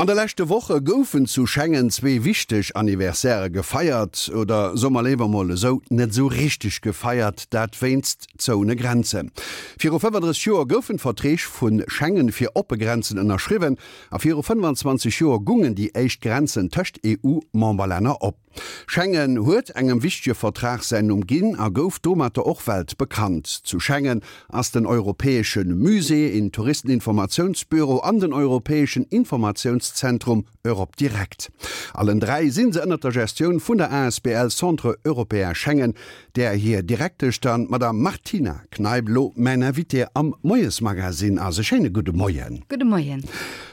An de leschte Woche goufen zu Schengen zwee wichteg Anniversairë gefeiert, oder soe mer léiwer mol esou, net esou richteg gefeiert, dat wéinst zoune Grenzen. Viru 35 Joer goufen d'Verträg vu Schengen fir oppe Grenzen ënnerschriwwen a viru 25 Joer gungen déi éischt Grenzen tëscht EU-Memberlänner op. Schengen huet engem wichtege Vertrag säin Numm ginn a gouf domatter och weltbekannt. Zu Schengen ass den Europäesche Musée, een Touristeninformatiounsbüro an den Europäeschen Informatiounszentrum Europe Direct. Allen 3 si se ënnert der Gestioun vun der asbl Centre Européen Schengen, där hir Direktesch dann d'Madame Martina Kneip elo mäin Invité am Moiesmagazine ass. E schéine gudde Moien. Gudde Moien.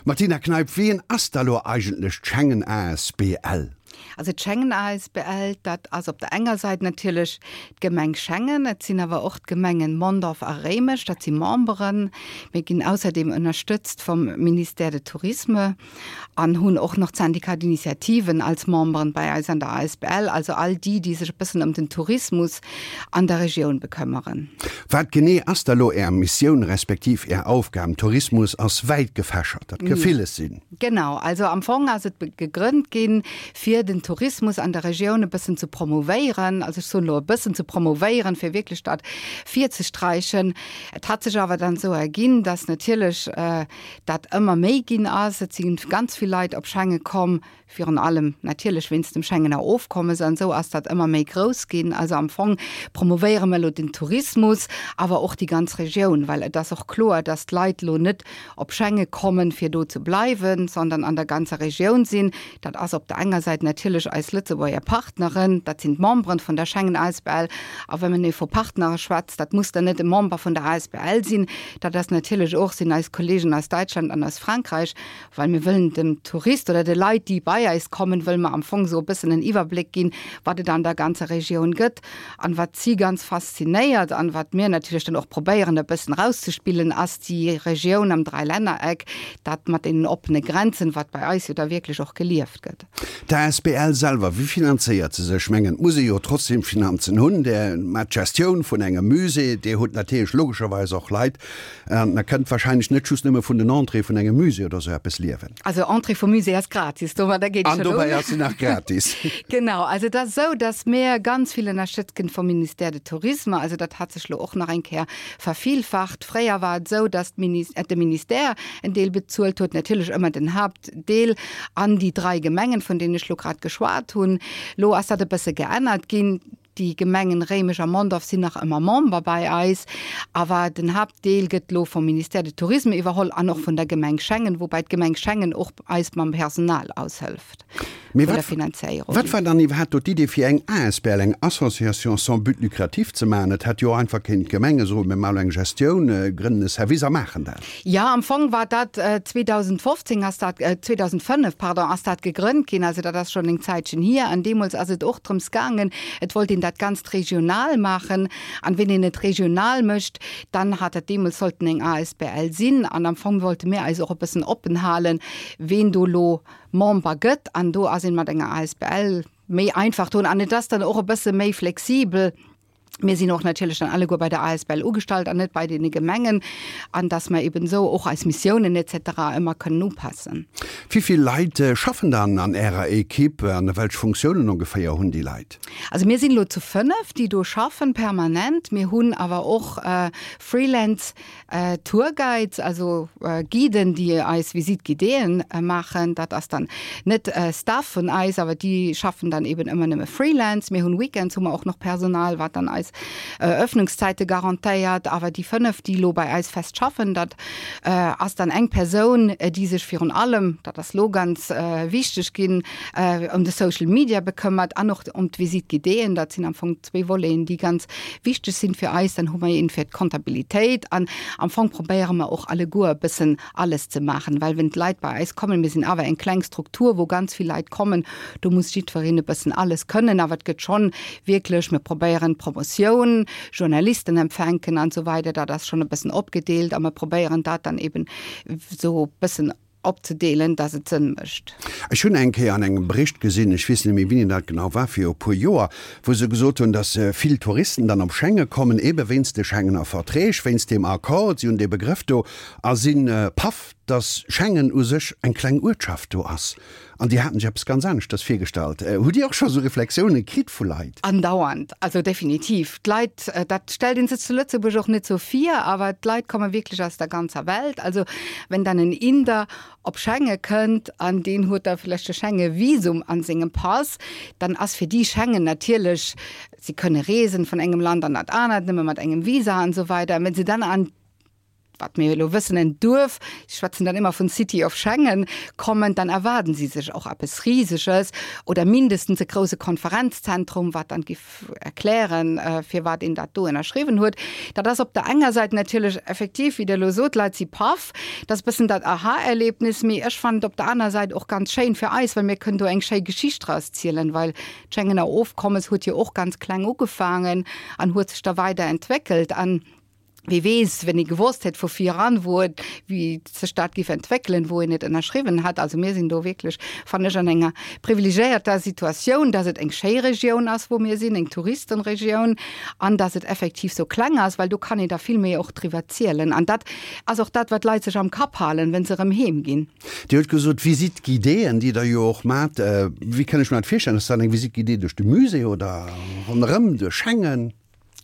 Martina Kneip, wien ass da lo eigentlech d'Schengen asbl? Also d'Schengen asbl, dat ass op der enger Säit natierlech d'Gemeng Schengen, et sinn awer och d'Gemengen Mondorf a Réimech, dat si Memberen. Mir ginn ausserdeem ënnerstëtzt vum Ministère de Tourisme an hunn och nach d'Syndicat d'initiativen als Memberen bei eis an der asbl, also all déi, déi sech e bëssen ëm den Tourismus an der Regioun bekëmmeren. Wat genee ass da lo Är Missioun respektiv Är Aufgaben? Tourismus ass wäit gefächert, dat ka villes sinn. Genau, also am Fong ass et gegrënnt ginn, fir den Tourismus an der Regioun e bëssen ze promouvéieren. Also ech soen elo e bëssen ze promouvéieren, fir wierklech dat virzesträichen. Et hat sech awer dann esou erginn, dass natierlech dat ëmmer méi ginn ass. Et si ganz vill Leit op Schengen komm, Virun allem natierlech wéinst dem Schengener Ofkommes an esou ass dat ëmmer méi grouss ginn. Also am Fong promouvéiere mer elo den Tourismus, awer och déi ganz Regioun, well et ass och kloer, dass d'Leit elo net op Schengen kommen, fir do ze bleiwen, sondern an der ganzer Regioun sinn. Dat ass op der enger Säit natierlech eis Lëtzebuerger Partneren, dat sinn d'Memberen vun der Schengen asbl. A wa men vu Partnere schwätzt, dat muss dann net e Member vun der asbl sinn, dat ass natierlech och, sinn eis Kollegen aus Däitschland an aus Frankräich, Well mir wëllen dem Tourist oder de Leit, déi bei eis kommen, wëlle mer am Fong esou e bëssen en Iwwerbléck ginn, wat et an der ganzer Regioun gëtt an wat si ganz faszinéiert an wat mir natierlech dann och probéieren e bëssen erauszespillen, ass déi Regioun am Dräilännereck, dat mat deenen oppene Grenzen, wat bei eis jo da wierklech och gelieft gëtt. D'asbl selwer, wéi finanzéiert se sech? Ech mengen, et muss ee jo trotzdem Finanzen hunn. Där maacht d'Gestioun vun engem Musée, Dir hutt natierlech logescherweis och Leit, An der kënnt wahrscheinlech net just nëmme vun den Entrée vun engem Musée oder sou eppes liewen. Also Entrée vum Musée ass gratis, domadder geet An schon dobäi un. ass se nach gratis. Genau, also et ass esou, datt mir ganz vill ënnerstëtzt ginn vum Ministère de Tourisme. Also dat hat sech lo och nach eng Kéier vervielfacht. Fréier war et esou, datt d'Minis-, de Ministère en Deel bezuelt huet, natierlech ëmmer den Haaptdeel, an déi drai Gemengen, vun deenen ech lo grad geschwat hunn. Lo ass dat e bësse geännert ginn. Déi Gemengen Réimech a Mondorf sinn nach ëmmer Member bei eis, awer den Haaptdeel gëtt elo vum Ministère de Tourisme iwwerholl an och vun der Gemeng Schengen, woubäi d'Gemeng Schengen och eis mam Personal aushëlft Mee vun der wat, Finanzéierung. wat war dann iwwerhaapt do d'Idee fir eng asbl, eng Association sans but lucratif ze maachen? Et hätt jo och einfach kéinten d'Gemenge soen, mir maachen elo eng Gestioun, grënnen e Service a maachen dat. Jo, am Fong war dat 2015 ass dat, 2005, pardon, ass dat gegrënnt ginn. Also dat ass schonn eng Zäitchen hier. An deemools ass et och drëms gaangen, et wollt een dat Ganzt regional maachen. An ween een et regional mécht, dann hat dat deemools sollten eng asbl sinn. An am Fong wollte mir eis och e bëssen oppen halen, ween do elo Member gëtt. An do ass een mat enger asbl méi einfach drun. An et ass dann och e bësse méi flexibel. Mir sinn och natierlech dann alleguer bei der asbl ugestallt an net bei deene Gemengen, an dass mer eben esou och eis Missiounen et cetera ëmmer kënnen upassen. Wéi vill Leit schaffen dann an Ärer Equipe an welch Funktiounen ongeféier hunn déi Leit? Also mir sinn elo zu 5, déi do schaffen permanent. Mir hunn awer och Freelance Tourguides, also Guiden, déi eis Visite guidéeën maachen. Dat ass dann net Staff vun eis, awer déi schaffen dann eben ëmmer nëmme Freelance. Mir hunn Weekends hu mer och nach Personal, wat dann eis Öffnungszäite garantéiert. Awer déi 5, déi elo bei eis fest schaffen, dat ass dann eng Persoun, déi sech virun allem, dat ass elo ganz wichteg ginn, ëm de Social Media bekëmmert an och ëm d'Visite guidéeën. Dat sinn am Fong zwee Voleten, déi ganz wichteg sinn fir eis. Dann hu mer een fir d'Kontabilitéit an am Fong probéiere mer och alleguer e bëssen alles ze maachen, well wenn d'Leit bei eis kommen, mir sinn awer eng kleng Struktur, wou ganz vill Leit kommen, do muss jiddwereen e bëssen alles kënnen, awer et gëtt schonn wierklech, mir probéieren d'Promotioun, Journalisten empfänken an esou weider, dat ass schonn e bëssen opgedeelt a mer probéieren dat dann eben esou e bëssen opzedeelen, dass et Sënn mécht. Ech hunn eng Kéier an engem Bericht gesinn, ech weess net méi wéini dat genau war, viru e puer Joer, wou se gesot hunn, dass vill Touristen dann op Schengen kommen, eebe wéinst de Schengener Verträg, wéinst deem Accord, si hunn dee Begrëff do, a si paff. Dass Schengen u sech eng kleng Uertschaft do ass an déi haten sech eppes ganz aneschters virgestallt. Hutt Dir och scho sou Reflexioune kritt vu Leit? Andauernd, also definitiv. D'Leit, dat stellt ee sech zu Lëtzebuerg och net sou vir, awer d'Leit komme wierklech aus der ganzer Welt. Also wenn dann en Inder op Schengen kënnt an deen huet da vläicht e Schengen-Visum an sengem Pass, dann ass fir déi Schengen natierlech, si kënne reesen vun engem Land an dat anert, nëmme mat engem Visa an esou weider. Wenn se dann an wat mir elo wëssen, en Duerf, ech schwätzen dann ëmmer vun City of Schengen, kommen, dann erwaarden si sech och eppes Riseges oder mindestens e grouse Konferenzzentrum, wat dann giff erklären, firwat een dat do ënnerschriwwen huet. Dat ass op der enger Säit natierlech effektiv, wéi Der elo sot, d'Leit si paff, dat ass e bëssen dat Aha-Erlebnis, mee ech fannen et op der aner Säit och ganz schéin fir eis, well mir kënnen do eng schéi Geschicht draus zielen, well d'Schengener Ofkommes huet jo och ganz kleng ugefaangen an huet sech da weider entwéckelt an, Wie weess, wenn ee gewosst hätt vu viran, wou et, wéi sech dat géif entwéckelen, wou een et ënnerschriwwen hat. Also mir sinn do wierklech, fannen ech, an enger privilegéierter Situatioun, dass et eng schéi Regioun ass, wou mir sinn, eng Touristenregioun, an dass et effektiv sou kleng ass, well do kann een da vill méi och driwwer zielen. An dat ass och dat, wat d'Leit sech am Kapp halen, wa se erëm heem ginn. Dir hutt gesot, Visite guidéeën, déi Der jo och maacht. Wéi kann ech mer dat virstellen? Ass dat eng Visite guidée duerch de Musée oder ronderëm duerch Schengen?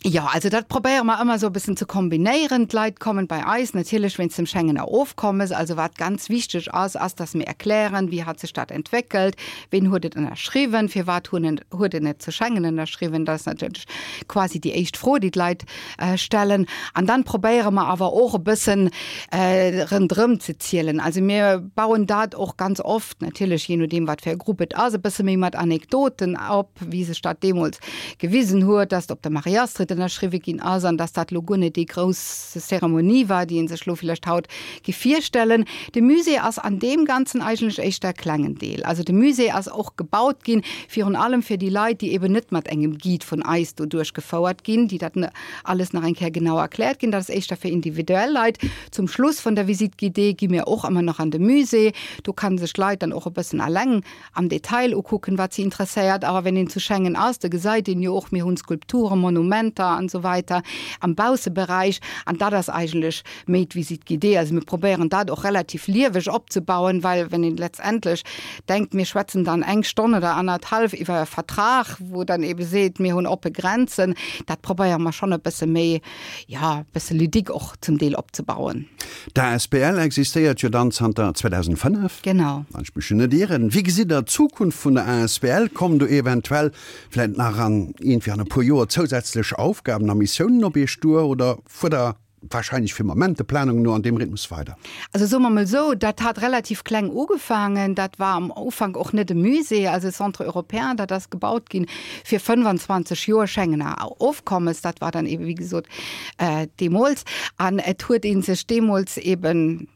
Jo, also dat probéiere mer ëmmer esou e bëssen ze kombinéieren. D'Leit kommen bei eis natierlech wéinst dem Schengener Ofkommes. Also wat ganz wichteg ass, ass dass mir erklären, wéi hat sech dat entwéckelt, ween huet et ënnerschriwwen, firwat hunn en, huet en et zu Schengen ënnerschriwwen. Dat ass natierlech quasi déi éischt Fro, déi d'Leit stellen. An dann probéiere mer awer och e bëssen rëndrëm ze zielen. Also mir bauen dat och ganz oft, natierlech jee nodeem wat fir e Grupp et ass, e bësse méi mat Anekdoten op, wéi sech dat deemools gewisen huet, dass op der Marie-Astrid ënnerschriwwe ginn ass an dass dat elo guer net déi grouss Zeremonie war, déi ee sech elo villäicht haut géif virstellen. De Musée ass an deem Ganzen eigentlech éischter e klengen Deel. Also de Musée ass och gebaut ginn, virun allem fir déi Leit, déi eben net mat engem Guide vun eis do duerchgefouert ginn, déi dat alles nach eng Kéier genau erkläert ginn. Dat ass éischter fir individuell Leit. Zum Schluss vun der Visite guidée gi mir och ëmmer nach an de Musée. Do kann sech d'Leit dann och e bëssen alleng am Detail ukucken, wat si interesséiert. Awer wenn een zu Schengen ass, da gesäit een jo och, mir hunn Skulpturen, Monumenter an esou weiter am Bausseberäich. An dat ass eigentlech méi d'Visite guidée. Also mir probéieren dat och relativ lieweg opzebauen, well wenn een letztendlech denkt, mir schwätzen dann eng Stonn oder annerthalf iwwer e Vertrag, wou dann eebe seet, mir hunn oppe Grenzen, dat probéiere mer schonn e bësse méi, jo, e bësse ludique och zum Deel opzebauen. D'asbl existéiert jo dann zanter 2005. Genau. Wann ech mech jo net ieren. Wéi gesitt Der d'Zukunft vun der asbl? Kommen do eventuell vläit nach an iergendwéi an e puer Joer zousätzlech Aufgaben a Missiounen op Iech duer oder fuert Der wahrscheinlech fir Moment der Planung no an deem Rhythmus weider? Also soe mer mol esou, dat hat relativ kleng ugefaangen. Dat war am Ufank och net e Musée, also e Centre européen, dat ass gebaut ginn fir 25 Joer Schengener Ofkommes. Dat war dann ebe wéi gesot deemools. An et huet ee sech deemools eben,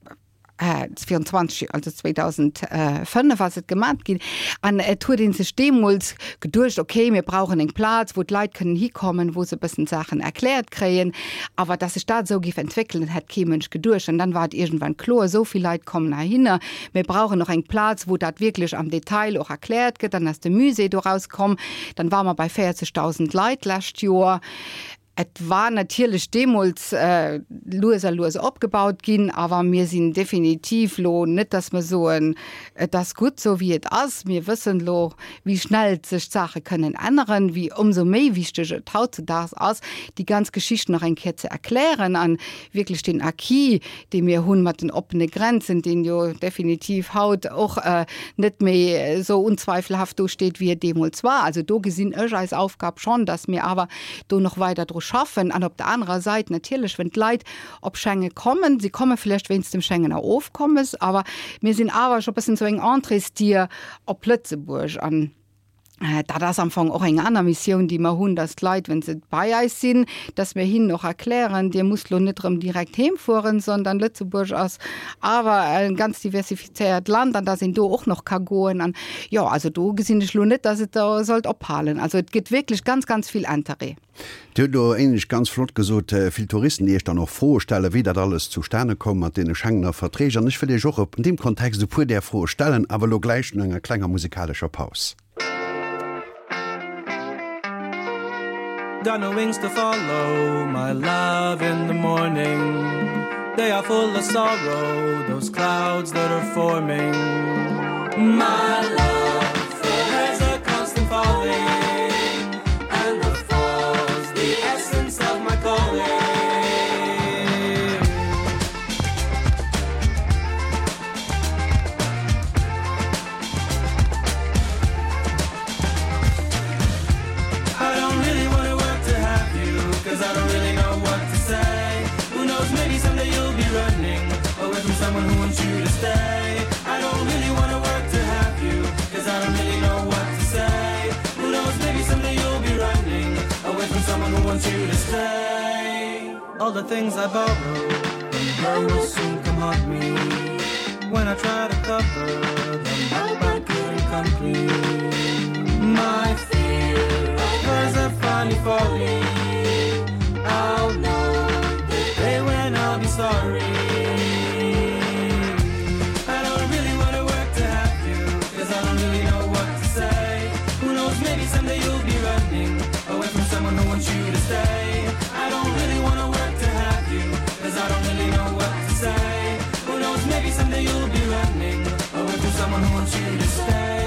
virun 20 Joer, also 2005 ass et gemat ginn, an et huet ee sech deemools geduecht, okay, mir brauchen eng Plaz, wou d'Leit kënnen hikommen, wou se e bëssen d'Saachen erkläert kréien. Awer dass sech dat esou géif entwéckelen, dat hätt kee Mënsch geduecht. An dann war et iergendwann kloer, esou vill Leit kommen heihinner, mir brauchen och eng Plaz, wou dat wierklech am Detail och erkläert gëtt. Dann ass de Musée doraus komm. Dann ware mer bei 40.000 Leit d'lescht Joer. Et war natierlech deemools lues a lues opgebaut ginn, awer mir sinn definitiv lo net, dass mer soen, et ass gutt esou wéi et ass. Mir wëssen elo, wéi schnell sech d'Saache kënnen änneren, wéi ëmsou méi wichteg et hautzedaags ass, déi ganz Geschicht nach eng Kéier ze erklären an wierklech deen Acquis, dee mir hunn mat den oppene Grenzen, deen jo definitiv haut och net méi esou unzweifelhaft do steet, wéi et deemools war. Also do gesinn ech eis Aufgab schonn, dass mir awer do nach weider dru schaffen. An op der anerer Sait natierlech, wenn d'Leit op Schengen kommen, si komme vläicht wéinst dem Schengener Ofkommes, awer mir sinn awer scho e bëssen esou eng Entréesdier op Lëtzebuerg. An Dat ass am Fong och eng aner Missioun, déi mer hunn, dass d'Leit, wa se bei eis sinn, dass mir hinnen och erklären, Dir musst lo net erëm direkt heem fueren, sondern Lëtzebuerg ass awer e ganz diversifizéiert Land an dass een do och nach ka goen. An jo, also do gesinn ech lo net, dass et do sollt ophalen. Also et gëtt wierklech ganz, ganz vill Interêt. Dir hutt elo éinescht ganz flott gesot, vill Touristen, déi Iech dann och Froe stellen, wéi dat alles zustane koum mat deene Schengener Verträg. An ech wëll Iech och an deem Kontext e puer där Froe stellen, awer elo gläich no enger klenger musikalescher Paus. Got no wings to follow my love in the morning. They are full of sorrow, those clouds that are forming. My love there's a constant falling, and the fall's the essence of my calling. I don't really wanna work to have you, cause I don't really know what to say. Who knows, maybe someday you'll be running away from someone who wants you to stay. I don't really wanna work to have you, cause I don't really know what to say. Who knows, maybe someday you'll be running away from someone who wants you to stay. All the things I borrow, them will soon come haunt me. When I try to cover them up, I couldn't come clean. My fear of are finally falling. I'll know the day when I'll be sorry. I don't really wanna work to have you, cause I don't really know what to say. Who knows, maybe someday you'll be running away from someone who wants you to stay. I don't really wanna work to have you, cause I don't really know what to say. Who knows, maybe someday you'll be running away from someone who wants you to stay.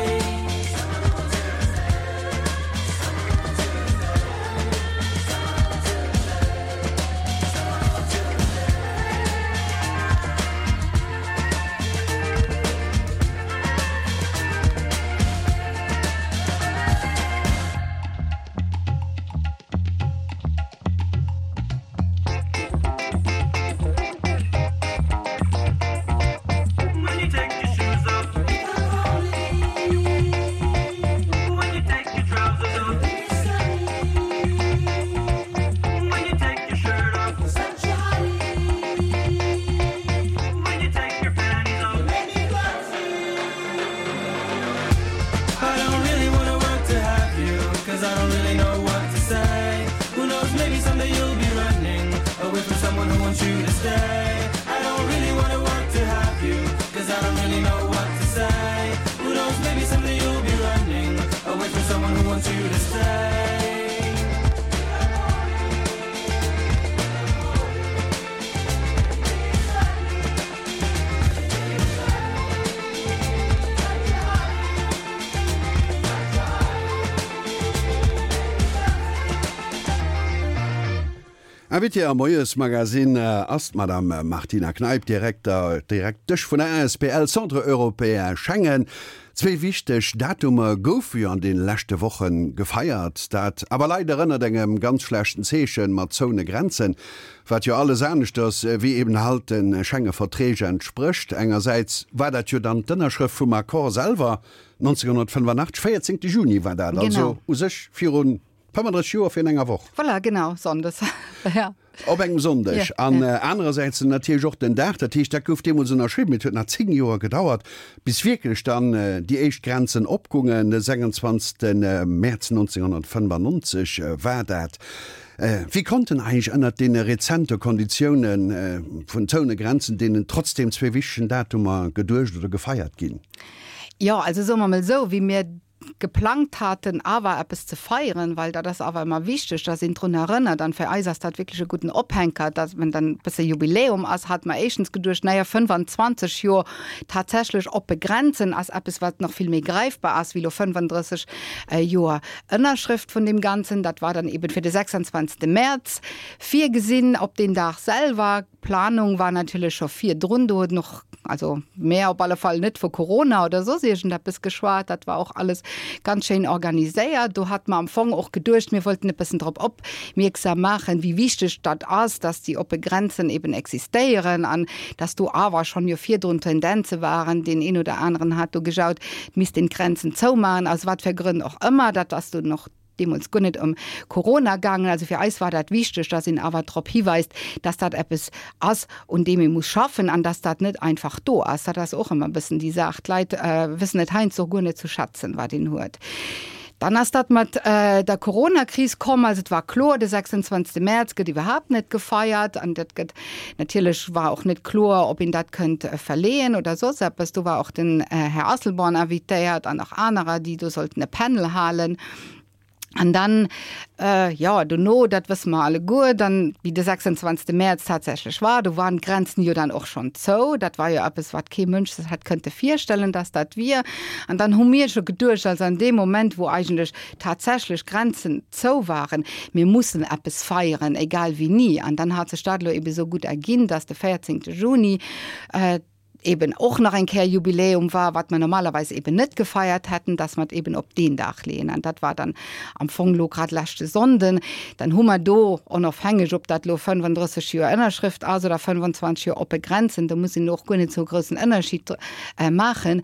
I don't really wanna work to have you, cause I don't really know what to say. Who knows, maybe someday you'll be running away from someone who wants you to stay. I don't really wanna work to have you, cause I don't really know what to say. Who knows, maybe someday you'll be running away from someone who wants you to stay. Invitée am Moiesmagazin ass d'Madame Martina Kneip, Direkter, Direktesch vun der asbl Centre Européen Schengen. Zwee wichteg Datumer goufe jo an deene leschte Woche gefeiert, dat awer leider ënnert engem ganz schlechten Zeechen, mat zoune Grenzen, wat jo alles aneschters wéi eben halt de Schengeverträg entsprécht. Engersäits war dat jo dann d'Ënnerschrëft vum Accord selwer 1985, 14 Juni war dat, also u sech viru 35 Joer virun enger Woch. Voilà, genau, Sonndes, ja. Op engem Sonndeg. An anerersäits natierlech och den Dag, dat heescht, dat gouf deemools ënnerschriwwen, mee et huet nach 10 Joer gedauert, bis wierklech dann déi éischt Grenzen opgungen. De 26. Mäerz 1995 war dat. Wéi konnten eigentlech ënnert deene rezente Konditioune vun zoune Grenzen deenen trotzdem zwee wichtegen Datumer geduecht oder gefeiert ginn? Jo, also soe mer mol esou, wéi mir geplangt haten awer eppes ze feieren, well dat ass awer ëmmer wichteg, dass een drun erënnert, an fir eis ass dat wierklech e gudden Ophänker, dass wenn dann e bësse Jubiläum ass, hate mer éischtens geduecht, naja, 25 Joer tatsächlech oppe Grenzen ass eppes, wat nach vill méi gräifbar ass wéi elo 35 Joer Ënnerschrëft vun deem Ganzen. Dat war dann eben fir de 26. Mäerz virgesinn. Op deen Dag selwer D'Planung war natierlech scho virdrun, do huet en och, also mär op alle Fall, net vu Corona oder soss iergendeppes geschwat. Dat war och alles ganz schéin organiséiert. Do hate mer am Fong och geduecht, mir wollten e bëssen drop opmierksam maachen, wéi wichteg dat ass, dass déi oppe Grenzen eben existéieren an dass do awer schonn jo virdrun Tendenze waren, deen een oder aneren hat do gejaut, et misst een d'Grenzen zoumaachen, aus wat fir Grënn och ëmmer. Dat ass dunn och deemools guer net ëm Corona gaangen. Also fir eis war dat wichteg, dass een awer drop hiweist, dass dat eppes ass, un deem ee muss schaffen an dass dat net einfach do ass. Dat ass och ëmmer e bëssen déi Saach. D'Leit wëssen et heiansdo guer net ze schätzen, wat een huet. Dann ass dat mat der Coronakris komm. Also et war kloer, de 26. Mäerz gëtt iwwerhaapt net gefeiert an dat gëtt natierlech war och net kloer, ob een dat kënnt verleeën oder soss eppes. Do war och den Här Asselborn invitéiert an nach anerer, déi do sollten e Panel halen. An dann, jo, dono, dat wësse mer alleguer, dann, wéi de 26. Mäerz tatsächlech war, do waren d'Grenzen jo dann och schonn zou. Dat war jo eppes, wat kee Mënsch sech hätt kënnte virstellen, dass dat wier. An dann hu mir scho geduecht, also an deem Moment, wou eigentlech tatsächlech Grenzen zou waren, mir mussen eppes feieren, egal wéini. An dann hat sech dat elo ebe sou gutt erginn, dass de 14. Juni, eben och nach eng Kéier Jubiläum war, wat mer normalerweis eben net gefeiert hätten, dass mer et eben op deen Dag leeën. An dat war dann am Fong elo grad leschte Sonnden. Dann hu mer do, onofhängeg ob dat elo 35 Joer Ënnerschrëft ass oder 25 Joer oppe Grenzen, do muss een elo och guer net esou e groussen Ënnerschied maachen,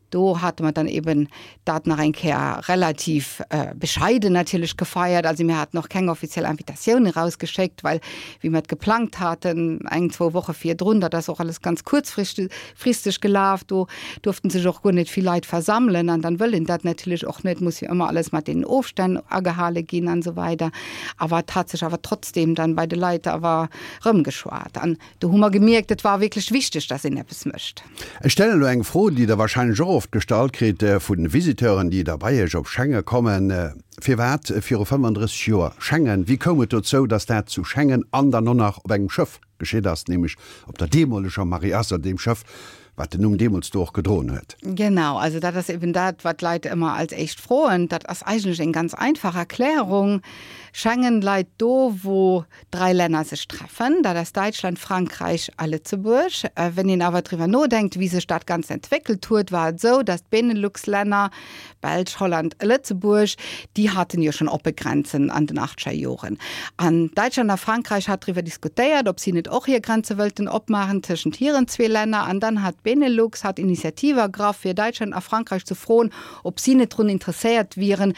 do hate mer dann eben dat nach eng Kéier relativ bescheiden natierlech gefeiert. Also mir haten och keng offiziell Invitatioun erausgeschéckt, well wéi mer et geplangt haten, eng, zwou Woche virdrun, dat ass och alles ganz kuerzfristeg gelaf, do duerften sech och guer net vill Leit versammelen an dann wëll een dat natierlech och net, muss jo ëmmer alles mat deenen Ofstänn agehale ginn an esou weider. Awer et hat sech awer trotzdem dann bei de Leit awer erëmgeschwat an Do hu mer gemierkt, et war wierklech wichteg, dass een eppes mécht. Ech stellen elo eng Fro, déi Der wahrscheinlech och oft gestallt kritt vu Visiteuren, déi da bei Iech op Schengen kommen, Firwat viru 35 Joer Schengen? Wéi koum et dozou, dass dat zu Schengen an dann och nach op engem Schëff geschitt ass, nämlech op der deemoleger Marie-Astrid, deem Schëff, wat den Numm deemools do och gedroen huet? Genau, also dat ass eben dat, wat d'Leit ëmmer als éischt froen. Dat ass eigentlech eng ganz einfach Erklärung. Schengen leit do, wou drai Länner sech treffen, dat ass Däitschland, Frankräich a Lëtzebuerg. Wenn een awer driwwer nodenkt, wéi sech dat Ganzt entwéckelt huet, war et esou, datt d'Benelux-Länner, Belsch, Holland a Lëtzebuerg, déi haten jo schonn oppe Grenzen an den achtzeger Joren. An Däitschland a Frankräich hat driwwer diskutéiert, ob si net och hir Grenze wëllten opmaachen tëschent hiren zwee Länner. An dann hat d'Benelux hat Initiative ergraff, fir Däitschland a Frankräich ze froen, ob si net drun interesséiert wieren,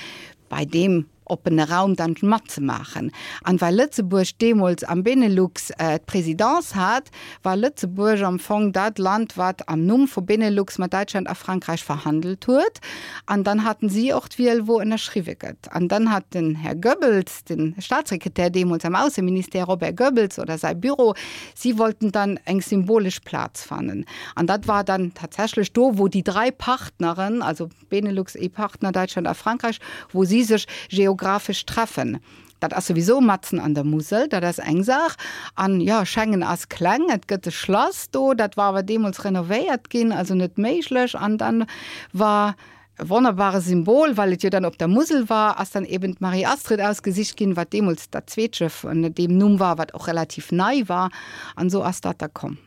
bei deem oppene Raum dann matzemaachen. An well Lëtzebuerg deemools am Benelux d'Présidence hat, war Lëtzebuerg am Fong dat Land, wat am Numm vu Benelux mat Däitschland a Frankräich verhandelt huet. An dann haten si och d'Wiel, wou ënnerschriwwe gëtt. An dann hat den Här Goebbels, de Staatssekretär deemools am Ausseministère, Robert Goebbels, oder säi Büro, si wollten dann eng symbolesch Plaz fannen. An dat war dann tatsächlech do, wou déi drai Partneren, also Benelux, EU-Partner, Däitschland a Frankräich, wou si sech geographesch treffen. Dat ass souwisou matzen an der Musel, dat ass eng Saach. An jo, Schengen ass kleng, et gëtt e Schlass do, dat war awer deemools renovéiert ginn, also net méiglech. An dann war e wonnerbare Symbol, well et jo dann op der Musel war, ass dann eben d'Marie-Astrid ausgesicht ginn, wat deemools dat zweet Schëff ënner deem Numm war, wat och relativ nei war. An esou ass dat da komm.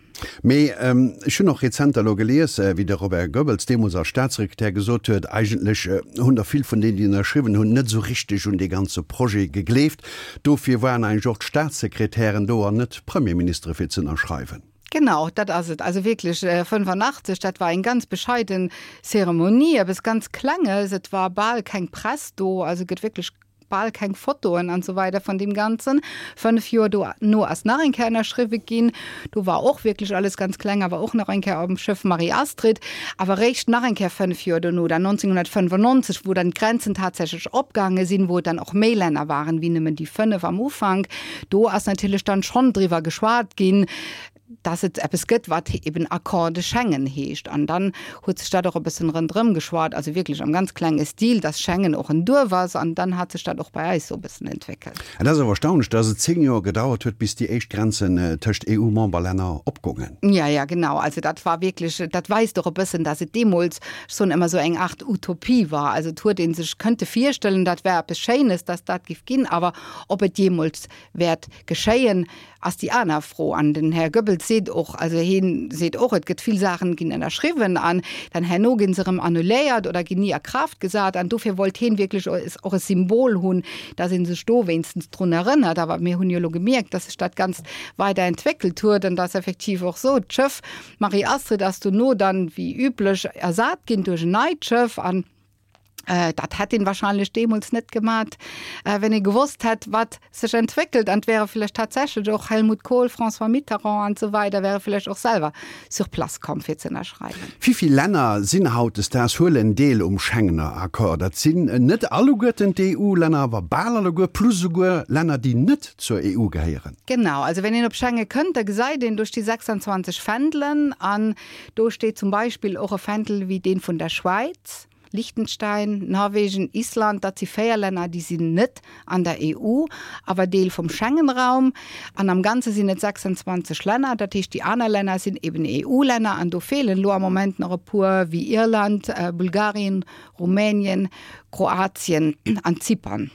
Mee ech hunn och rezenter elo gelies, wéi de Robert Goebbels deemools als Staatssekretär gesot huet, eigentlech hunn der vill vun deenen, déi ënnerschriwwen hunn, net esou richteg un dee ganze Projet gegleeft. Dofir waren eigentlech och d'Staatssekretären do an net d'Premierministere fir ze ënnerschreiwen. Genau, dat ass et. Also wierklech 85, dat war eng ganz bescheiden Zeremonie, eppes ganz Klenges. Et war bal keng Press do, also gëtt wierklech bal keng Fotoen an esou weider vun deem Ganzen. 5 Joer dono ass nach eng Kéier ënnerschriwwe ginn. Do war och wierklech alles ganz kleng, awer och nach eng Kéier am Schëff Marie-Astrid. Awer réischt nach eng Kéier 5 Joer dono, dann 1995, wou dann d'Grenzen tatsächlech opgaange sinn, wou et dann och méi Länner waren wéi nëmmen déi 5 am Ufank, do ass natierlech dann schonn driwwer geschwat ginn, dass et eppes gëtt, wat eben Accord de Schengen heescht. An dann huet sech dat och e bëssen ronderëm geschwat, also wierklech am ganz klenge Stil, dass Schengen och en Duerf ass. An dann hat sech dat och bei eis esou e bëssen entwéckelt. Et ass awer erstaunlech, dass et 10 Joer gedauert huet, bis déi éischt Grenzen tëscht EU-Memberlänner opgoungen. Ja, ja, genau. Also dat war wierklech, dat weist och e bëssen, dass et deemools schonn ëmmer esou eng Art Utopie war. Also et huet ee sech kënnte virstellen, dat wär eppes Schéines, dass dat giff ginn, awer ob et jeemools wäert geschéien, ass déi aner Fro. An den Här Goebbels seet och, also hie seet och, et gëtt vill Saachen, ginn ënnerschriwwen an dann herno gi se erëm annuléiert oder ginn ni a Kraaft gesat. An dofir wollt hien wierklech och e Symbol hunn, datt ee sech do wéinstens drun erënnert. Awer mir hunn jo elo gemierkt, datt sech dat Ganzt weider entwéckelt huet an datt effektiv och esou d'Schëff Marie-Astrid ass dono dann, wéi üblech, ersat ginn duerch en neit Schëff. An Dat hätt een wahrscheinlech deemools net gemat, wenn ee gewosst hätt, wat sech entwéckelt. An et wäre vläicht tatsächlech och Helmut Kohl, François Mitterrand an esou weider wäre vläicht och selwer sur place komm, fir ze ënnerschreiwen. Wivill Länner sinn hautdesdaags, huelen deel um Schengener Accord? Dat sinn net alleguerten d'EU-Länner, awer bal alleguer, plus esouguer Länner, déi net zur EU gehéieren. Genau, also wenn een op Schengen kënnt, da gesäit een, do sti 26 Fändelen an do steet zum Beispill och e Fändel wéi dee vun der Schwäiz. Liechtenstein, Norwegen, Island, dat si 4 Länner, déi sinn net an der EU, awer Deel vum Schengenraum. An am Ganze sinn et 26 Länner, dat heescht déi aner Länner sinn eben EU-Länner an do feelen elo am Moment nach e puer, wéi Irland, Bulgarien, Rumänien, Kroatien an Zypern.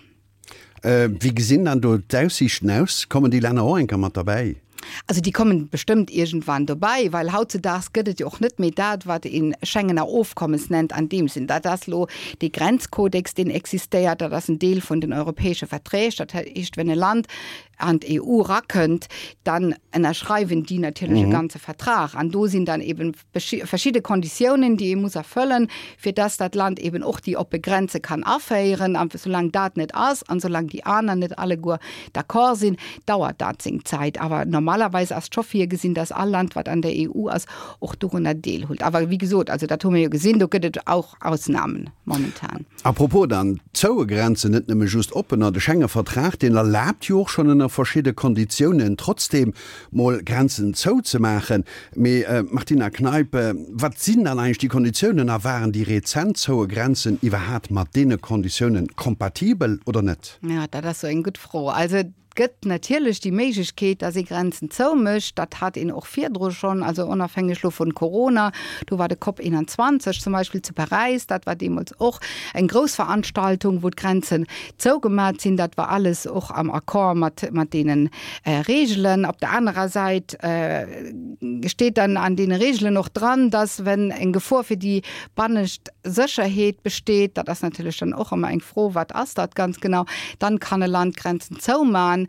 Wéi gesinn dann do d'Aussiichten aus? Kommen déi Länner och eng Kéier mat derbäi? Also déi kommen bestëmmt iergendwann dobäi, well hautzedaags gëtt et jo och net méi dat, wat ee Schengener Ofkommes nennt an deem Sinn. Dat ass elo dee Grenzkodex, deen existéiert, dat ass en Deel vun den europäesche Verträg. Dat heescht, wenn e Land an d'EU erakënnt, dann ënnerschreiwen déi natierlech e ganze Vertrag an do sinn dann eben verschidde Konditiounen, déi ee muss erfëllen, fir dass dat Land eben och déi oppe Grenze kann aféieren. A soulaang dat net ass an soulaang déi aner net alleguer d'accord sinn, dauert dat seng Zäit. Awer normalerweis ass scho virgesinn, dass all Land, wat an der EU ass, och dorunner deelhullt. Awer wéi gesot, also dat hu mir jo gesinn, do gëtt et och Ausnamen momentan. A propos dann, zoue Grenzen, net nëmme just oppener, de Schengen-Vertrag, deen erlaabt jo och schonn ënner verschidde Konditiounen trotzdeem mol Grenzen zou ze maachen. Mee Martina Kneip, wat sinn dann eigentlech déi Konditiounen a waren déi rezent zoue Grenzen iwwerhaat mat deene Konditiounen kompatibel oder net? Jo, dat ass sou eng gutt Fro. Also et gëtt natierlech déi Méiglechkeet, datt ee Grenzen zoumécht. Dat hat een och virdru schonn, also onofhängeg lo vun Corona. Do war de Cop 21 zum Beispill zu Paräis, dat war deemools och eng grouss Veranstaltung, wou d'Grenzen zougemat sinn. Dat war alles och am Accord mat, mat deene Reegelen. Op der anerer Säit steet dann an deene Reegelen och dran, dass, wenn eng Gefor fir déi bannescht Sécherheet besteet, dat ass natierlech dann och ëmmer eng Fro, wat ass dat ganz genau, dann kann e Land d'Grenzen zoumachen.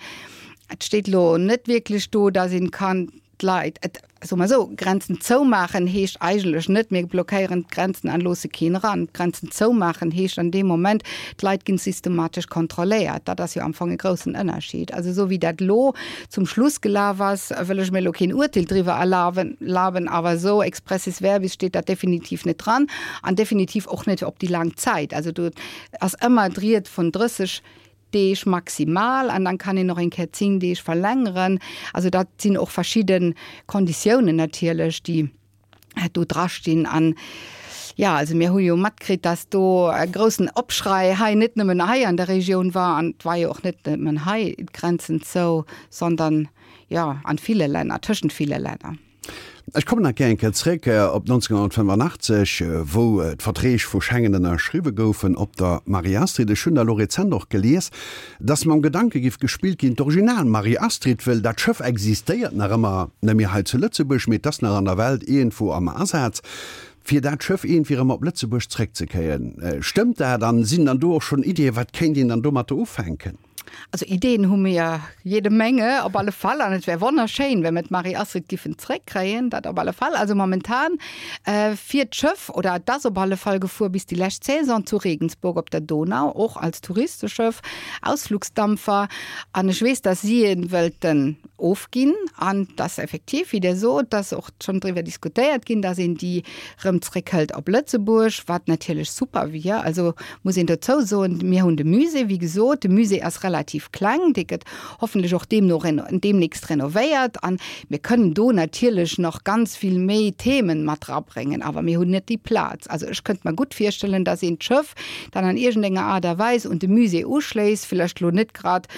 Et steet elo net wierklech do, dass een kann d'Leit, et, soe mer esou, Grenzen zoumaachen heescht eigentlech net, mir blockéieren d'Grenzen an loosse keen eran. D'Grenzen zoumaachen heescht an deem Moment, d'Leit ginn systematesch kontrolléiert. Dat ass jo am Fong e groussen Ënnerschied. Also esou wéi dat elo zum Schluss gelaf ass, wëll ech mir elo keen Urteel driwwer erlaben, laben, awer esou expressis verbis steet dat definitiv net dran an definitiv och net op déi laang Zäit. Also do ass ëmmer d'Ried vun 30 Deeg maximal an dann kann een och eng Kéier 10 Deeg verlängeren. Also dat sinn och verschidde Konditiounen natierlech, déi do drastinn. An jo, also mir hu jo matkritt, dass do e groussen Opschrei hei net nëmmen hei an der Regioun war an et war jo och net nëmmen hei d'Grenzen zou, sondern jo an ville Länner, tëschent ville Länner. Ech kommen nach gär eng Kéier zréck op 1985, wou d'Verträg vu Schengen ënnerschriwwe goufen op der Marie-Astrid. Ech hunn da elo rezent och gelies, dass mam Gedanke giff gespillt ginn, d'Original Marie-Astrid, wëll dat Schëff existéiert nach ëmmer, net méi hei zu Lëtzebuerg, mee et ass nach an der Welt iergendwou am Asaz, fir dat Schëff iergendwéi erëm op Lëtzebuerg zréckzekréien. Stëmmt dat? An sinn dann do och schonn Iddien, wat kéint een dann domatter ufänken? Also Ideen hu mir jede Menge op alle Fall an et wär wonnerschéin, wenn mir d'Marie-Astrid giffen zréckkréien, dat op alle Fall. Also momentan äh, fiert d'Schëff oder et ass op alle Fall gefuer bis déi lescht Saison zu Regensburg op der Donau, och als Touristeschëff, Ausflugsdampfer. An ech weess, dass si e wëllten ofginn an dass effektiv, wéi Der sot, dass och schonn driwwer diskutéiert ginn, dass een déi rëm zréckhëlt op Lëtzebuerg, wat natierlech super wier. Also muss een dozou soen, mir hunn de Musée, wéi gesot, de Musée ass relativ kleng, dee gëtt hoffentlech och deemno deemnächst renovéiert an mir kënnen do natierlech nach ganz vill méi Themen mat rabréngen, awer mir hunn net déi Plaz. Also ech kënnt mer gutt virstellen, dass een d'Schëff dann an iergendenger Aart a Weis un de Musée uschléisst, vlächcht elo net grad,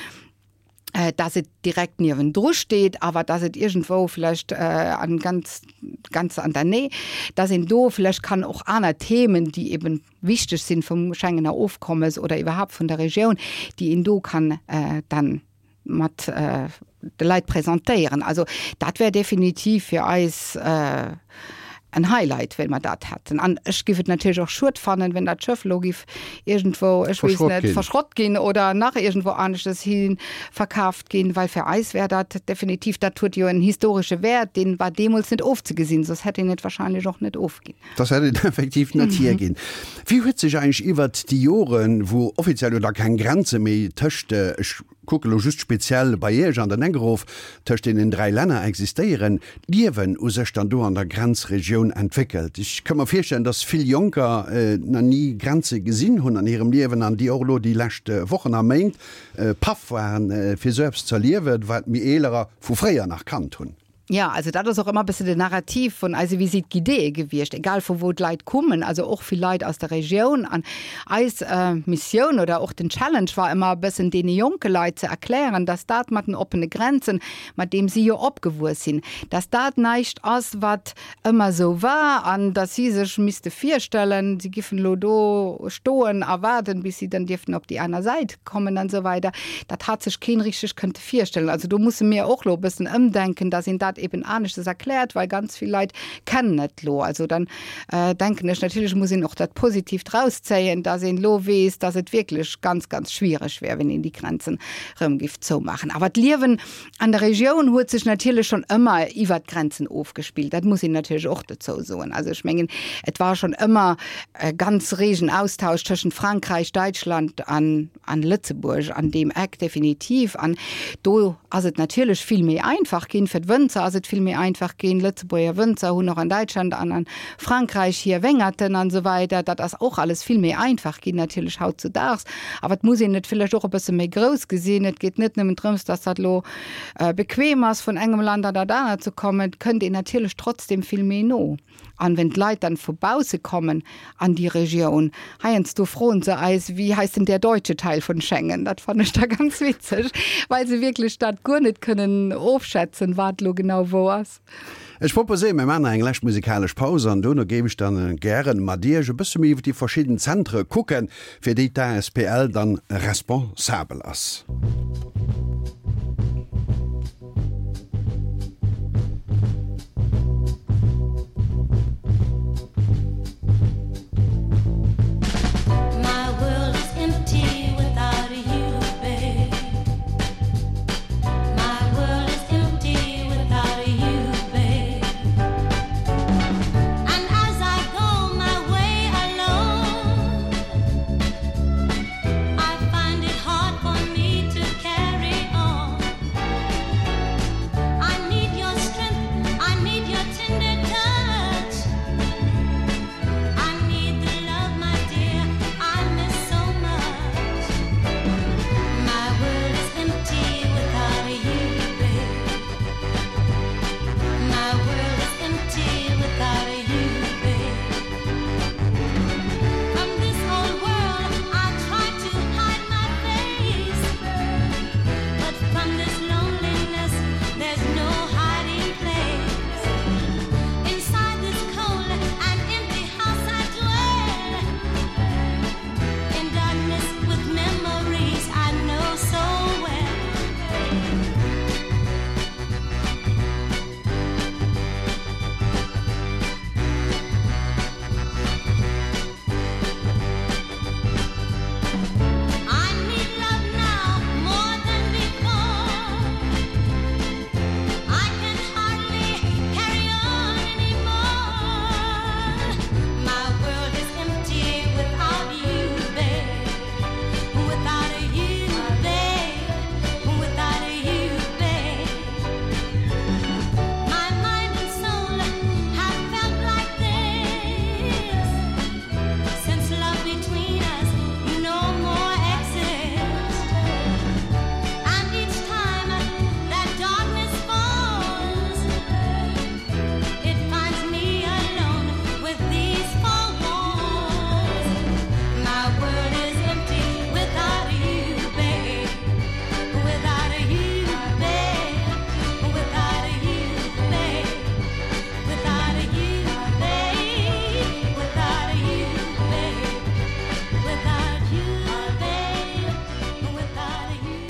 dass et direkt niewendru steet, awer dass et iergendwou vläicht an ganz, ganz an der Näh, dass een do vläicht kann och aner Themen, déi eben wichteg sinn vum Schengener Ofkommes oder iwwerhaapt vun der Regioun, déi een do kann dann mat de Leit presentéieren. Also dat wär definitiv fir eis en Highlight, well mer dat hätten. An ech giff et natierlech och schued fannen, wenn dat Schëff elo giff iergendwou, ech weess net, verschrott ginn oder nach iergendwou aneschtes hi verkaaft ginn, well fir eis wär dat definitiv, dat huet jo en historesche Wäert, dee war deemools net ofzegesinn, soss hätt een et wahrscheinlech och net ofginn. Soss hätt een et effektiv net hierginn. Wéi huet sech eigentlech iwwert déi Joren, wou offiziell jo da keng Grenze méi tëscht, ech kucke lo just speziell bei Iech an den Eck erof, tëscht deenen 3 Länner existéieren, d'Liewen u sech dann do an der Grenzregioun entwéckelt. Ech ka mer virstellen, dass vill Jonker nach ni Grenze gesinn hunn an hirem Liewen an déi och elo déi lescht Wochen a Méint paff waren, fir esou eppes z'erliewen, wat mir Eelerer vu fréier nach kannt hunn. Jo, also dat ass och ëmmer e bësse den Narrativ vun eise Visite guidéeë gewiescht, egal vu wou d'Leit kommen, also och vill Leit aus der Regioun. An eis Missioun oder och den Challenge war ëmmer e bëssen deene jonke Leit ze erklären, dass dat mat den oppene Grenzen, mat deem si jo opgewuess sinn, dass dat näischt ass, wat ëmmer esou war an dass si sech misste virstellen, si giffen elo do stoen a waarden, bis si dann dierften op déi aner Säit kommen an esou weider. Dat hat sech keen richteg kënnte virstellen. Also do musse mir och elo e bëssen ëmdenken, dass een dat eben aneschtes erkläert, well ganz vill Leit kennen et elo. Also dann denken ech, natierlech muss een och dat Positiivt rauszéien, dass een elo weess, dass et wierklech ganz, ganz schwiereg wär, wenn een déi Grenzen erëm giff zoumaachen. Awer d'Liewen An der Regioun huet sech natierlech schonn ëmmer iwwert d'Grenzen ofgespillt. Dat muss een natierlech och dozou soen. Also ech mengen, et war schonn ëmmer e ganz regen Austausch tëschent Frankräich, Däitschland an an Lëtzebuerg an deem Eck definitiv. An do ass et natierlech vill méi einfach ginn. Fir d'Wënzer ass et vill méi einfach ginn. Lëtzebuerger Wënzer hunn och an Däitschland an a Frankräich hir Wéngerten an esou weider. Dat ass och alles vill méi einfach ginn natierlech hautzudaags. Awer et muss een et villäicht och e bësse méi grouss gesinn. Et geet net nëmmen drëms, dass dat elo bequem ass, vun engem Land an dat anert ze kommen. Et kënnt een natierlech trotzdem vill méi no. An wenn d'Leit dann vu bausse kommen an déi Regioun, heiansdo froen se eis, Wie heißt denn der deutsche Teil von Schengen? Dat fannen ech da ganz witzeg, well se wierklech dat guer net kënnen ofschätzen, wat elo genau wou ass. Ech proposéieren, mir maachen nach eng lescht musikalesch Paus an dono géif ech dann gären mat Iech e bësse méi iwwer déi verschidden Zentre kucken, fir déi d'ASPL dann responsabel ass.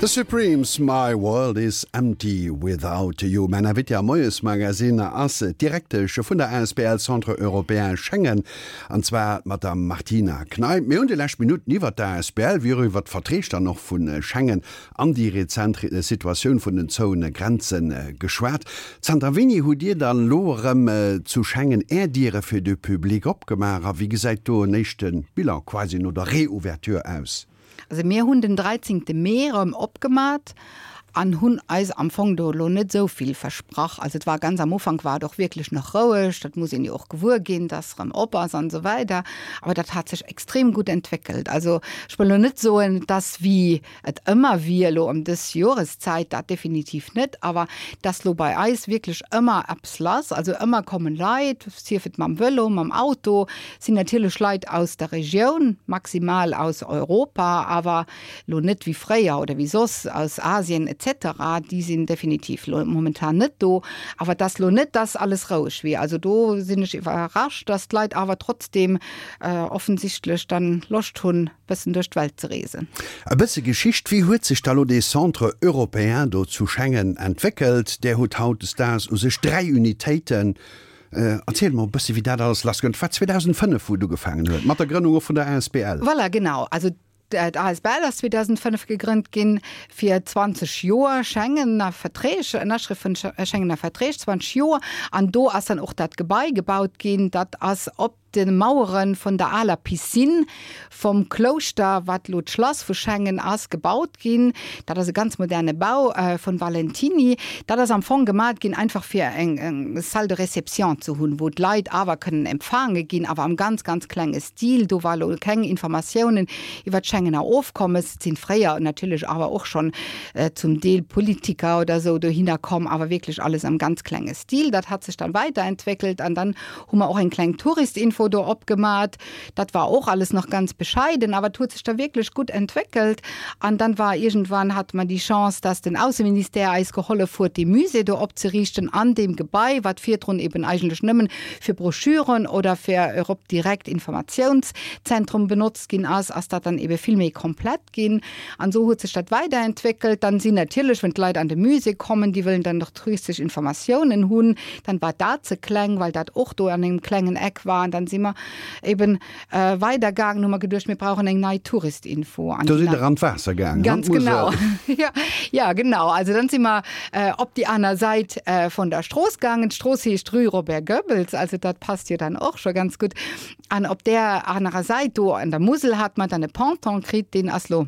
The Supremes, My World Is Empty Without You. Mäin Invité am Moiesmagazine ass d'Direktesch vun der asbl Centre Européen Schengen, an zwar d'Madame Martina Kneip. Mir hunn déi lescht Minutten iwwert d'asbl wéi och iwwert d'Verträg dann och vu Schengen an déi rezent Situatioun vun den zouene Grenze geschwat. Zanter wéini hutt Dir dann elo erëm zu Schengen Är Diere fir de Public opgemaach a wéi gesäit do en éischte Bilan quasi no der Reouverture aus? Also mir hunn den 13 Mee erëm opgemat. An hunn eis am Fong do elo net esou vill versprach. Also et war ganz am Ufank war et och wierklech nach roueg, dat muss een jo och gewuer ginn, dass erëm op ass an esou weider. Awer dat hat sech extrem gutt entwéckelt. Also ech wëll elo net soen, dass wéi et ëmmer wier elo ëm dës Joreszäit, dat definitiv net, awer dass lo bei eis wierklech ëmmer eppes lass, also ëmmer kommen Leit, sief et mam Vëlo, mam Auto, sinn natierlech Leit aus der Regioun, maximal aus Europa, awer lo net wéi fréier oder wéi soss aus Asien etc, déi sinn definitiv lo momentan net do. Awer et ass lo net, dass alles roueg wier. Also do sinn ech iwwerrascht, dass d'Leit awer trotzdeem offensichtlech dann Loscht hunn, bëssen duerch d'Welt ze reesen. E bësse Geschicht, Wéi huet sech da lo dee Centre européen do zu Schengen entwéckelt? Där hutt hautdesdaags u sech 3 Unitéiten. Erziel mol e bësse wéi dat alles lassgoung. Et war 2005 wou et ugefaangen huet, mat der Grënnung och vun der asbl. Voilà, genau. Also d'asbl ass 2005 gegrënnt ginn, fir 20 Joer Schengener Verträg, Ënnerschrëft vun Schengener Verträg, 20 Joer. An do ass dann och dat Gebai gebaut ginn. Dat ass op de Mauere vun der aler Piscine vum Klouschter, wat elo d'Schlass vu Schengen ass, gebaut ginn. Dat ass e ganz moderne Bau vun Valentini. Dat ass am Fong gemat ginn einfach fir eng Salle de réception ze hunn, wou d'Leit awer kënnen empfaange ginn, awer am ganz, ganz klenge Stil. Do war elo keng Informatiounen iwwer d'Schengener Ofkommes. Et sinn fréier natierlech awer och schonn zum Deel Politiker oder esou dohinner komm, awer wierklech alles am ganz klenge Stil. Dat hat sech dann weiterentwéckelt an dann hu mer och eng kleng Touristinfo do opgemat. Dat war och alles nach ganz bescheiden, awer et huet sech da wierklech gutt entwéckelt. An dann war iergendwann, hate mer déi Chance, dass den Ausseministère eis gehollef huet, dee Musée do opzeriichten an deem Gebai, wat virdrun eben eigentlech nëmmen fir Broschüren oder fir Europe Direct Informatiounszentrum benotzt ginn ass, ass dat dann ebe vill méi komplett ginn. An esou huet sech dat weiderentwéckelt. Dann sinn natierlech, wenn d'Leit an de Musée kommen, déi wëllen dann och touristesch Informatiounen hunn, dann war dat ze kleng, well dat och do an engem klengen Eck war. An dann si mer eben weidergaangen, hu mer geduecht, mir brauchen eng nei Touristinfo. An Do sidd Der an d'Waasser gaangen, an Ganz genau. Ja, ja, genau. Also dann si mer op déi aner Säit vun der Strooss gaangen. D'Strooss heescht Rue Robert Goebbels, also dat passt jo dann och scho ganz gutt. An op där anerer Säit do an der Musel hat mer dann e Ponton kritt, deen ass lo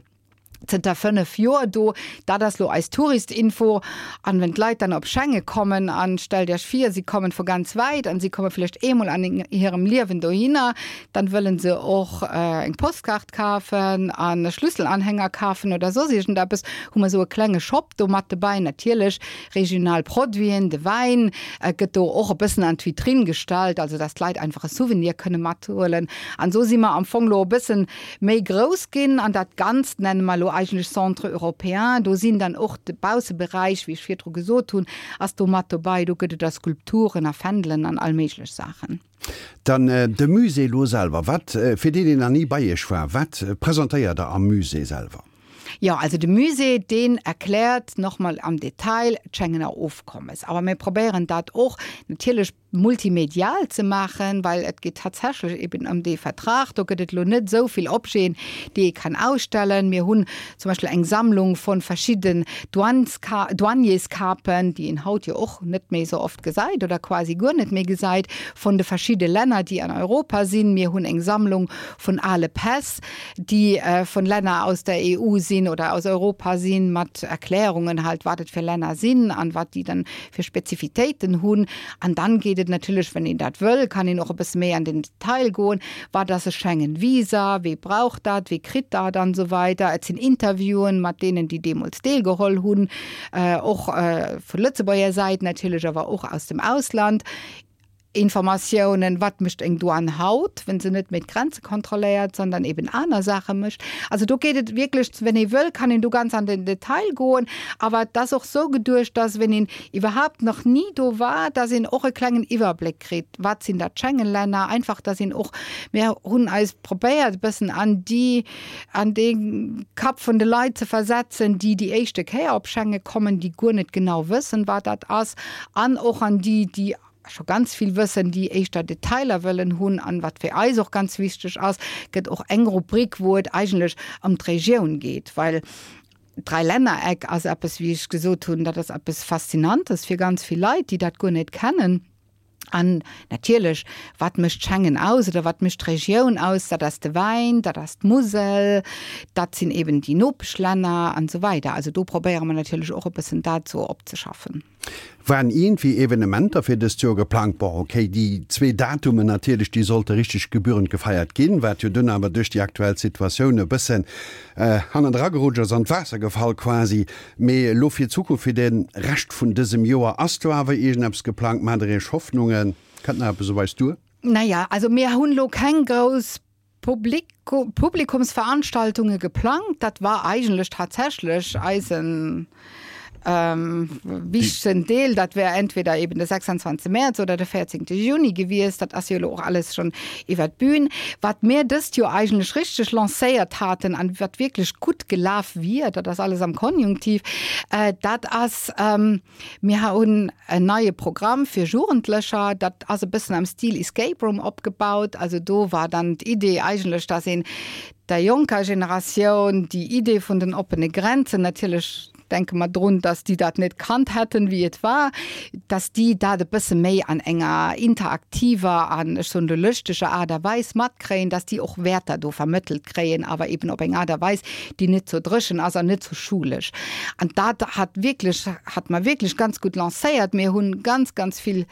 zënter 5 Joer do. Dat ass lo eis Touristinfo. An wenn d'Leit dann op Schengen kommen, an stellt Iech vir, si kommen vu ganz wäit an si komme vläicht eemol an hirem Liewen dohinner, dann wëllen se och eng Postkaart kafen an e Schlüsselanhänger kafen oder soss iergendeppes, hu mer esou e klenge Shop do mat dobäi. Natierlech regional Produiten, de Wäin gëtt do och e bëssen an d'Vitrinn gestallt, also dass d'Leit einfach e Souvenir kënne mathuelen. An esou si mer am Fong lo e bëssen méi grouss ginn an dat Ganzt nenne mer elo eigentlech Centre européen. Do sinn dann och de Bausseberäich, wéi ech virdru gesot hunn, ass do mat dobei. Do gëtt et da Skulpturen a Fändelen an all méiglech Saachen. Dann de Musée elo selwer. Wat, fir deen, deen nach ni bei Iech war, wat presentéiert Der am Musée selwer? Jo, also de Musée, deen erkläert nach mol am Detail d'Schengener Ofkommes. Awer mir probéieren dat och natierlech multimedial ze maachen, well et geet tatsächlech eben ëm dee Vertrag. Do gëtt et elo net esou vill Objeten, déi ee kann ausstellen. Mir hunn zum Beispill eng Sammlung vu verschidden Douaneska Douanierscapen, déi een haut jo och net méi esou oft gesäit oder quasi guer net méi gesäit, vun de verschidde Länner, déi an Europa sinn. Mir hunn eng Sammlung vun ale Päss, déi vun Länner aus der EU sinn oder aus Europa sinn, mat Erklärungen halt, wat et fir Länner sinn an wat déi dann fir Spezifitéiten hunn. An dann geet et natierlech, wann een dat wëll, kann een och e bësse méi an den Detail goen, wat ass e Schengen-Visa, wee brauch dat, wee kritt dat an esou weider. Et sinn Interviewen mat deenen, déi deemools deelgeholl hunn, och vu Lëtzebuerger Säit natierlech, awer och aus dem Ausland. Informatiounen, wat mécht eng Douane haut, wenn se net méi d'Grenze kontrolléiert, sondern eben aner Saache mécht. Also do geet et wierklech, wenn ee wëll, kann een do ganz an den Detail goen. Awer et ass och sou geduecht, dass, wenn een iwwerhaapt nach ni do war, dass een och e klengen Iwwerbléck kritt, wat sinn dat Schengen-Länner, einfach dass een och, mir hunn eis probéiert e bëssen an déi, an dee Kapp vun de Leit ze versetzen, déi déi éischte Kéier op Schengen kommen, déi guer net genau wëssen, wat dat ass, an och an déi, déi scho ganz vill wëssen, déi éischter Detailer wëllen hunn. An wat fir eis och ganz wichteg ass, gëtt och eng Rubrik, wou et eigentlech ëm d'Regioun geet, well d'Dräilännereck ass eppes, wéi ech gesot hunn, dat ass eppes Faszinantes fir ganz vill Leit, déi dat guer net kennen. An natierlech, wat mécht Schengen aus oder wat mécht d'Regioun aus? Dat ass de Wäin, dat ass d'Musel, dat sinn eben déi Nopeschlänner an esou weider. Also do probéiere mer natierlech och e bëssen dat esou opzeschaffen. Waren iergendwéi Evenementer fir dëst Joer geplangt? Bon, okay, déi zwee Datumen natierlech, déi sollte richteg gebührend gefeiert ginn, wat jo dunn awer duerch déi aktuell Situatioun e bëssen hannendra gerutscht ass, an d'Waasser gefall quasi. Mee elo fir d'Zukunft, fir de Rescht vun dësem Joer, ass do awer iergendeppes geplangt? Maacht der Iech Hoffnungen? Kënnt nach eppes op eis duer? Naja, also mir hunn elo keng grouss Publikumsveranstaltunge geplangt. Dat war eigentlech tatsächlech eisen wichtegsten Deel. Dat wär entweder eben de 26 Mäerz oder de 14 Juni gewiescht. Dat ass jo elo och alles schonn iwwer d'Bün. Wat mir dëst Joer eigentlech richteg lancéiert haten an wat wierklech gutt gelaf wier, dat ass alles am Konjunktiv, dat ass, mir hunn en neie Programm fir Jugendlecher, dat ass e bëssen am Stil Escape Room opgebaut. Also do war dann d'Idee eigentlech, dass een der jonker Generatioun déi Idee vun den oppene Grenzen natierlech, denke mer drun, dass déi dat net kannt hätten, wéi et war, dass déi dat e bësse méi an enger interaktiver an, ech soen elo, lëschteger Aart a Weis matkréien, dass déi och Wäerter do vermëttelt kréien, awer eben op eng Aart a Weis, déi net zo dréchen ass an net zo schulesch. An dat hat wierklech, hat mer wierklech ganz gutt lancéiert. Mir hu ganz, ganz vill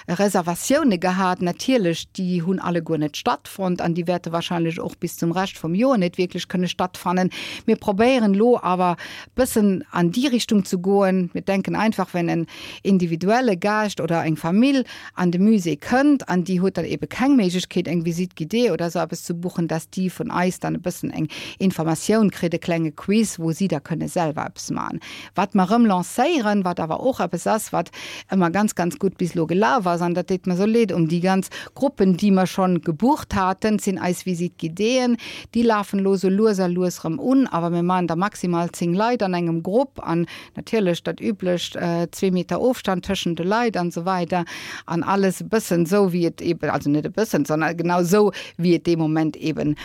Reservatioune gehat. Natierlech, déi hunn alleguer net stattfonnt an déi wäerte wahrscheinlech och bis zum Rescht vum Joer net wierklech kënne stattfannen. Mir probéieren elo awer bëssen an déi Richtung ze goen. Mir denken einfach, wenn en individuelle Gaascht oder eng Famill an de Musée kënnt an déi huet dann ebe keng Méiglechkeet eng Visite guidée oder esou eppes ze buchen, dass déi vun eis dann e bëssen eng Informatioun kritt, e klenge Quiz, wou si da kënne selwer eppes maachen. Wat mer erëm lancéieren, wat awer och eppes ass, wat ëmmer ganz, ganz gutt bis elo gelaf ass, an dat deet mer esou leed um déi ganz Gruppen, déi mer schonn gebucht haten, sinn eis Visite guidéeën. Déi lafen elo esou lues a lues erëm un, awer mir maachen der maximal 10 Leit an engem Grupp an natierlech dat üblecht, zwee Meter Ofstand tëschent de Leit an esou weider an alles e bëssen esou, wéi et eeben, also net e bëssen, sondern genau esou, wéi et dee Moment eeben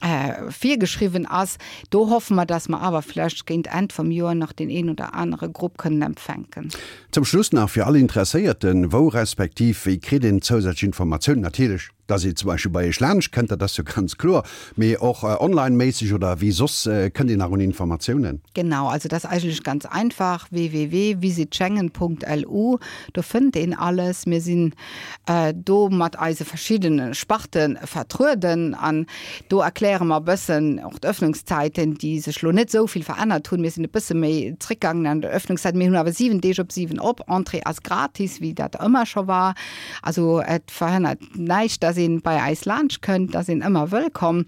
virgeschriwwen ass. Do hoffe mer, dass mer awer vlächcht géint Enn vum Joer nach deen een oder anere Grupp kënnen empfänken. Zum Schluss nach fir all Interesséierten, Wou respektiv wéi kritt een zousätzlech Informatiounen? Natierlech, dass ee zum Beispill bei Iech laanscht kënnt, dat ass jo ganz kloer, mee och online-méisseg oder wéi soss kënnt een nach un Informatiounen? Genau, also dat ass eigentlech ganz einfach, www.visitschengen.lu, do fënnt een alles. Mir sinn do mat eise verschiddene Sparte vertrueden an do erkläre mer e bëssen och d'Öffnungszäiten, déi sech lo net esou vill verännert hunn. Mir sinn e bësse méi zréckgaangen an der Öffnungszäit. Mir hunn awer 7 Deeg op 7 op. Entrée ass gratis, wéi dat ëmmer scho war. Also et verhënnert näischt, dass ee bei eis laanscht kënnt, da sinn ëmmer wëllkomm.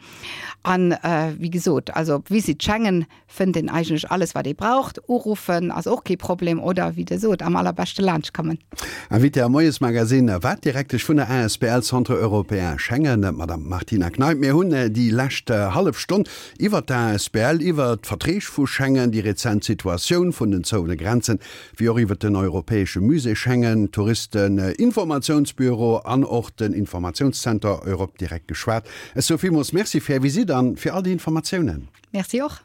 An wéi gesot, also op Visit Schengen fënnt een eigentlech alles wat ee braucht. Uruffen ass och kee Problem oder wéi der sot, am allerbeschte laanscht kommen. Invitée am Moiesmagazine war d'Direktesch vun der asbl Centre Européen Schengen, d'Madame Martina Kneip. Mir hunn déi lescht hallef Stonn iwwert d'asbl, iwwert d'Verträg vu Schengen, déi rezent Situatioun vun den zouene Grenzen, wéi och iwwert den Europäesche Musée Schengen, Touristeninformatiounsbüro an och den Informatiounszenter Europe Direct geschwat. Ech soe villmools Merci fir Är Visitt an fir all déi Informatiounen. Merci och.